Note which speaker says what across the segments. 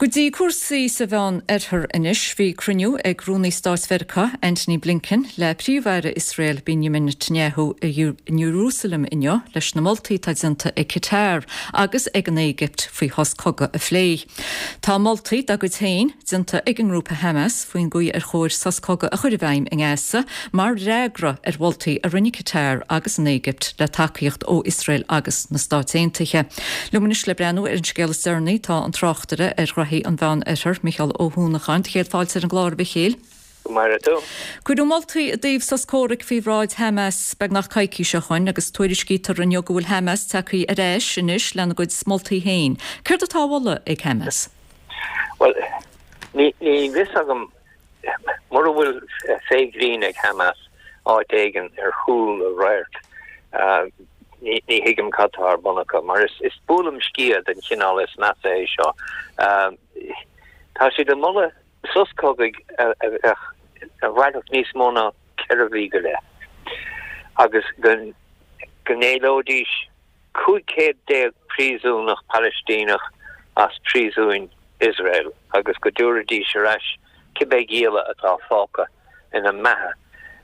Speaker 1: Go dtí cúrsaí sa Mheán Oirthear anois. Bhí cruinniú ag Rúnaí Stáit Mheiriceá, Antony Blinken, le Príomh-Aire Iosrael, Benjamin Netanyahu i Iarúsailéim inniu leis na moltaí atá déanta ag Qatar agus ag an Éigipt faoi shos cogaidh a phlé. Tá moltaí dá gcuid féin déanta ag an ngrúpa Hamas faoin gcaoi ar chóir sos cogaidh a chur i bhfeidhm i nGaza mar fhreagra ar mholtaí a rinne Qatar agus an Éigipt le tacaíocht ó Iosrael agus na Stáit Aontaithe. Liom anois le breathnú ar an scéal is deireanaí tá an tráchtaire ar ghraithí an Mheán Oirthir, Micheál Ó hUanacháin. Do chéad fáilte ar an gclár, a Mhichéil.
Speaker 2: Go maire tú.
Speaker 1: Cuireadh moltaí i dtaobh sos comhraic faoi bhráid Hamas beagnach coicís ó shoin agus tuairiscítear inniu go bhfuil Hamas tagtha ar ais anois lena gcuid moltaí féin. Céard atá á mholadh ag Hamas?
Speaker 2: Bhuel, ní fios agam Mura bhfuil féith ghrinn ag Hamas áit éigin ar chúl a radhairc, ní thuigim cad tá ar bun acu, mar is buaileam sciath den chineál is measa é seo. Tá siad ag moladh sos cogaidh a bheadh, a mhairfeadh níos mó ná 4 mhí go leith, agus go n-éileoidís 15 céad príosúnach Palaistíneach as príosúin Iosrael agus go dtabharfaidís ar ais cibé gialla atá fágtha ina mbeatha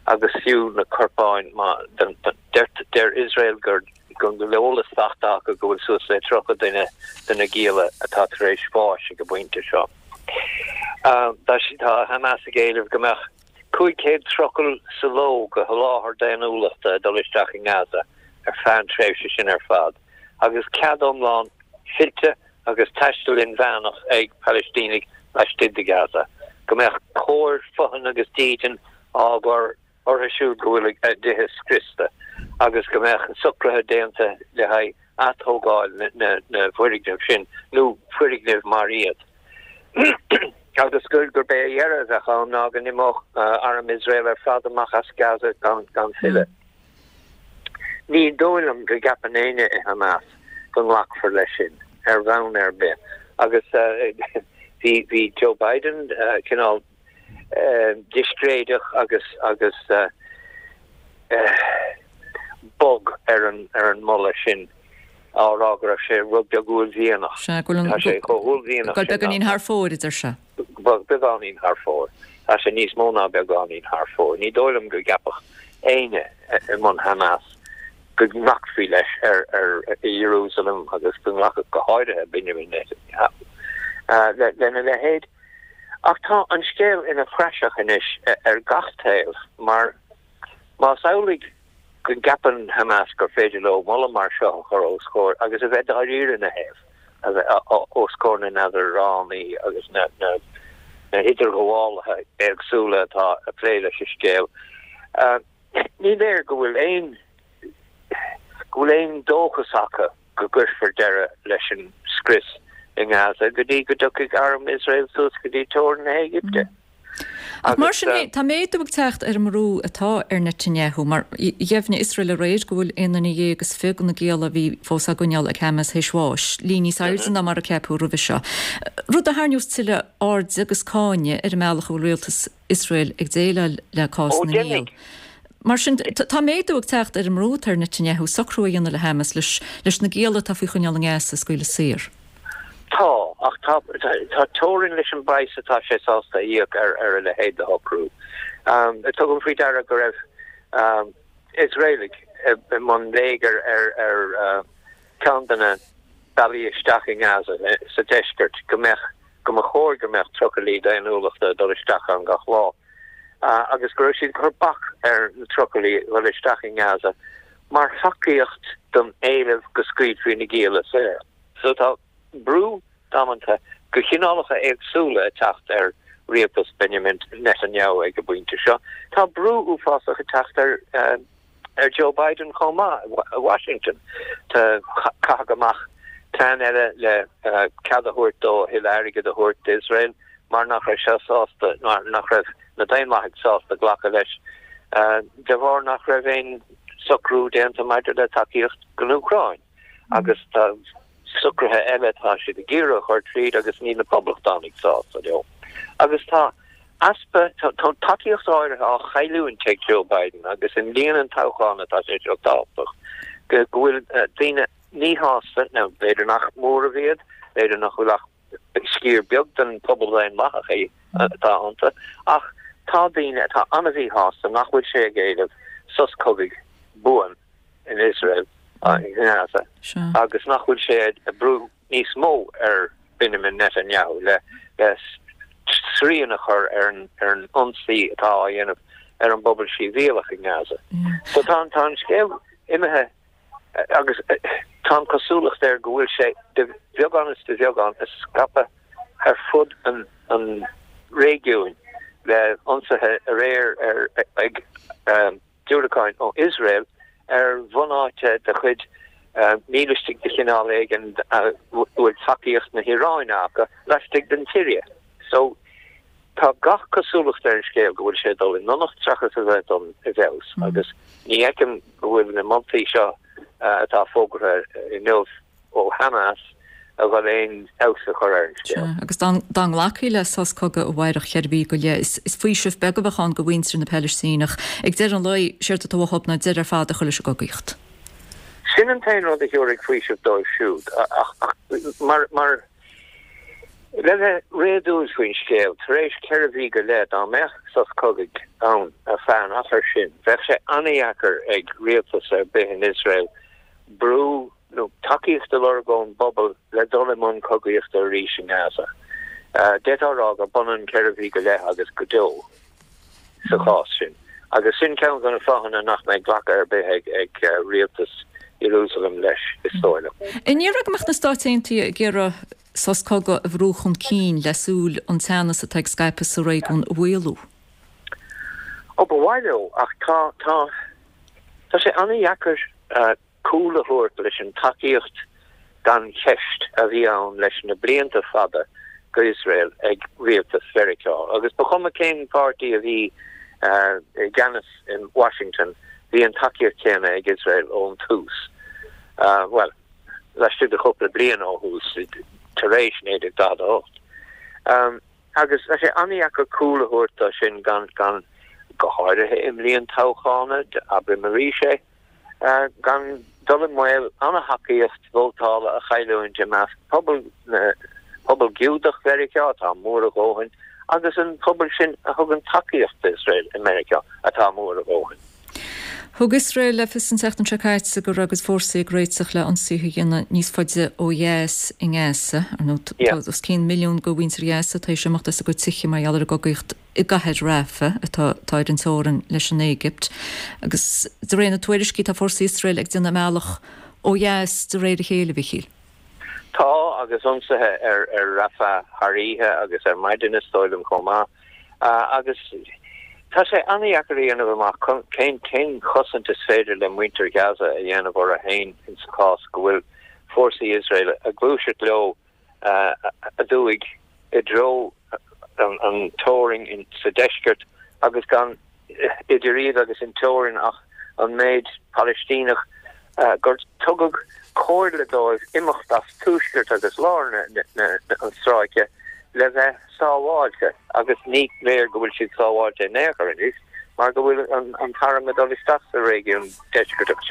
Speaker 2: agus fiú na corpáin má deir Iosrael gur go bhfuil eolas faighte acu go bhfuil suas le 30 duine de na gialla atá tar éis bháis ag an bpointe seo. Tá Hamas ag éileamh go mbeadh 500 trucail sa ló de sholáthar daonnúlachta ag dul isteach i nGaza ar feadh an tréimhse sin ar fad, agus cead iomlán fillte agus taisteal inmheánach ag Palaistínigh laistigh de Gaza, go mbeadh cóir, fothain agus dídean á gcur orthu siúd go bhfuil a dtithe scriosta, agus go mbeadh socruithe déanta le haghaidh atógáil na bhfoirgneamh sin nó foirgnimh mar iad. Agus gurb é a dheireadh a bheadh ann ná go n-imeodh arm Iosrael ar fad amach as Gaza gan filleadh. Ní dóigh liom go gceapann éinne i Hamas go nglacfar leis sin ar bhonn ar bith. Agus bhí Joe Biden cineál discréideach agus agus bog ar an ar an moladh sin á rá go raibh sé rud beag uaillmhianach.
Speaker 1: Sea, go bhfuil
Speaker 2: Tá sé chomh huaillmhianach
Speaker 1: sin beagáinín thar fóir, a deir sé.
Speaker 2: Beagáinín thar fóir. Tá sé níos mó ná beagáinín thar fóir. Ní dóigh liom go gceapfadh éinne i mbun Hamas go nglacfaí leis ar ar i Ierúsalem agus go nglacfadh go háirithe Benjamin Netanyahu lena leithéid. Ach tá an scéal ina phraiseach anois ar gach taobh mar más amhlaidh go gceapann Hamas gur féidir leo moladh mar seo a chur os comhair agus a bheith dáiríre ina thaobh, a bheith os comhair na n-eadránaí agus na n-idirghabhálaithe éagsúla atá ag plé leis an scéal, ní léir go bhfuil aon go bhfuil aon dóchas acu. go gcuirfear deireadh leis an scrios i nGaza go dtí go dtiocfaidh arm Iosrael suas go dtí teorainn na hÉigipte.
Speaker 1: Ach mar sin féin, tá méadú ag teacht ar an mbrú atá ar Netanyahu, mar dheimhnigh Iosrael aréir go bhfuil aon duine dhéag is 20 de na gialla a bhí fós á gcoinneáil ag Hamas théis bháis, líon níos airde ná mar a ceapadh roimhe seo, rud a tharraingeos tuilleadh airde agus cáinte ar an mbealach a bhfuil rialtas Iosrael ag déileáil le cás na ngiall. Mar sin, tá méadú ag teacht ar an mbrú atá ar Netanyahu socrú a dhéanamh le Hamas leis na gialla atá faoi choinneáil i nGaza a scaoileadh saor.
Speaker 2: Tá, ach tá teorainn leis an bpraghas atá sé sásta a íoc ar a leithéid de shocrú. Tugaim faoi deara go raibh Iosraelaigh i mbun léigir ar ceann de na bealaí isteach i nGaza sa deisceart, go mbeadh, go mba chóir go mbeadh trucailí daonnúlachta ag dul isteach ann gach lá, agus go raibh siad ag cur bac ar na trucailí dhul isteach i nGaza mar thacaíocht don éileamh go scaoilfí na gialla saor. So tá brú damanta de chineálacha éagsúla ag teacht ar rialtas Benjamin Netanyahu ag an bpointe seo. Tá brú uafásach ag teacht ar ar Joe Biden chomh maith i Washington. Caitheadh amach plean eile le cead a thabhairt dó a thuilleadh airgid a thabhairt d'Iosrael mar nach raibh sé sásta, mar nach raibh na Daonlathaigh sásta glacadh leis de bharr nach raibh aon socrú déanta maidir le tacaíocht don Úcráin. Agus tá socruithe eile atá siad ag iarraidh a chur tríd agus níl na Poblachtánaigh sásta leo. Agus tá easpa, tá tacaíocht áirithe á chailliúint ag Joe Biden agus i mbliain an toghcháin atá sé seo tábhachtach, go bhfuil daoine míshásta, nó b'fhéidir nach móramh iad, b'fhéidir nach bhfuil ach. Sciar beag den phobal daonlathach é atá iontu, ach tá daoine atá an-mhíshásta nach bhfuil sé ag éileamh sos cogaidh buan in Iosrael, i nGaza, agus nach bhfuil sé ag brú níos mó ar Benjamin Netanyahu le srian a chur ar an ionsaí atá á dhéanamh ar an bpobal sibhialach i nGaza. So tá an scéal imithe agus tá an chosúlacht air go bhfuil sé de bheagán is de bheagán ag scaipeadh ar fud an réigiúin le ionsaithe aréir ar ag diúracáin ó Iosrael ar bhunáite de chuid mílistigh de chineál éigin a bhfuil tacaíocht na hIaráine acu laistigh den tSiria. So, tá gach cosúlacht ar an scéal go bhfuil sé ag dul i ndonacht seachas a bheith ag dul i bhfeabhas agus ní fheicim go bhfuil na moltaí seo atá fógartha inniu ó Hamas a dhul aon fheabhas a chur ar an scéal.
Speaker 1: Sea, agus dá nglacfaí le sos cogaidh amárach cheithre mhí go leith, is faoiseamh beag a bheadh ann do mhuintir na Palaistíneach. Ag deireadh an lae, séard atá uathu ná deireadh ar fad a chur leis an gcogaíocht.
Speaker 2: Sin an t-aon rud a thabharfaidh faoiseamh dóibh siúd, ach mar, mar, le bheith réadúil faoin scéal, tar éis cheithre mhí go leith, dá mbeadh sos cogaidh ann ar feadh an achair sin, bheadh sé an-dheacair ag rialtas ar bith in Iosrael brú nó tacaíocht a lorg ón bpobal le dul i mbun cogaíochta arís i nGaza. D'fhéadfá a rá gur b'ionann ceithre mhí go leith agus go deo sa chás sin. Agus sin ceann de na fáthanna nach mbeidh glacadh ar bith ag rialtas Iarúsailéim leis, is dóigh liom.
Speaker 1: An ndéarfá go mbeadh na Stáit Aontaithe ag iarraidh sos cogaidh a bhrú chun cinn le súil an teannas atá ag scaipeadh sa réigiún a mhaolú?
Speaker 2: Ó, ba mhaith leo, ach tá, tá, tá sé an-dheacair cúl a thabhairt leis an tacaíocht gan cheist a bhí ann leis na blianta fada go Iosrael ag rialtas Mheiriceá. Agus ba chuma cén páirtí a bhí i gceannas in Washington, bhí an tacaíocht chéanna ag Iosrael ón tús. Bhuel, laistigh de chúpla bliain ó thús, tar éis 1948. Agus tá sé an-dheacair cúl a thabhairt dó sin gan, gan, go háirithe i mbliain toghchána, abraim arís é, gan dul i mbaol an-thacaíocht vótála a chailliúint i measc pobal na, pobal Giúdach Mheiriceá, atá mór a dhóthain, agus an pobal sin a thugann tacaíocht d'Iosrael i Meiriceá, atá mór a dhóthain.
Speaker 1: Thug Iosrael le fios an tseachtain seo caite go raibh a gcuid fórsaí ag réiteach le ionsaithe a dhéanamh níos faide ó dheas i nGaza. Ar ndóigh, tá os cionn milliún de mhuintir Ghaza tar éis imeacht as a gcuid tithe mar gheall ar an gcogaíocht i gcathair Rafah, atá ar an teorainn leis an Éigipt. Agus de réir na tuairiscí, tá fórsaí Iosrael ag déanamh a mbealach ó dheas de réir a chéile, a Mhíchíl.
Speaker 2: Tá, agus ionsaithe ar Rafah thar oíche agus ar maidin is dóigh liom chomh maith. Agus tá sé an-dheacair a dhéanamh amach cén cén chosaint is féidir le muintir Ghaza a dhéanamh orthu féin insa chás go bhfuil fórsaí Iosrael ag gluaiseacht leo aduaidh i dtreo an teorainn sa deisceart agus gan idir iad agus an teorainn ach an méid Palaistíneach gur tugadh comhairle dóibh imeacht as tuaisceart agus lár an stráice le bheith sábháilte agus ní léir go bhfuil siad sábháilte in aon chor anois mar go bhfuil an t-arm ag dul isteach sa réigiún deisceartach sin.